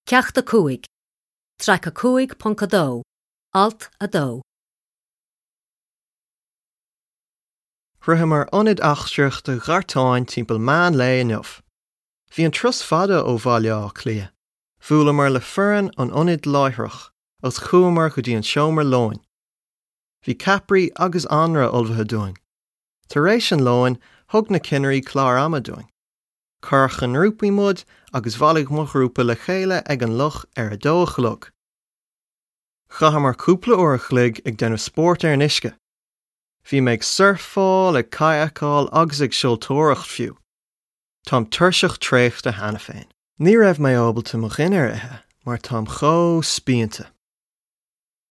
Ceacht 5, Traic 5.2, Alt 2. Shroicheamar Ionad Eachtraíochta Ghartáin timpeall meán lae inniu. Bhí an turas fada ó Bhaile Átha Cliath. Bhuaileamar le foireann an ionaid láithreach agus chuamar go dtí an seomra lóin. Bhí ceapairí agus anraith ullmhaithe dúinn. Tar éis an lóin, thug na cinnirí clár ama dúinn. Cuireadh i ngrúpaí muid agus bhailigh mo ghrúpa le chéile ag an loch ar a dó a chlog. Chaitheamar cúpla uair a chloig ag déanamh spóirt ar an uisce. Bhí mé ag surfáil, ag cadhcáil agus ag seoltóireacht fiú. Táim tuirseach traochta cheana féin. Ní raibh mé ábalta mo dhinnéar a ithe mar táim chomh spíonta.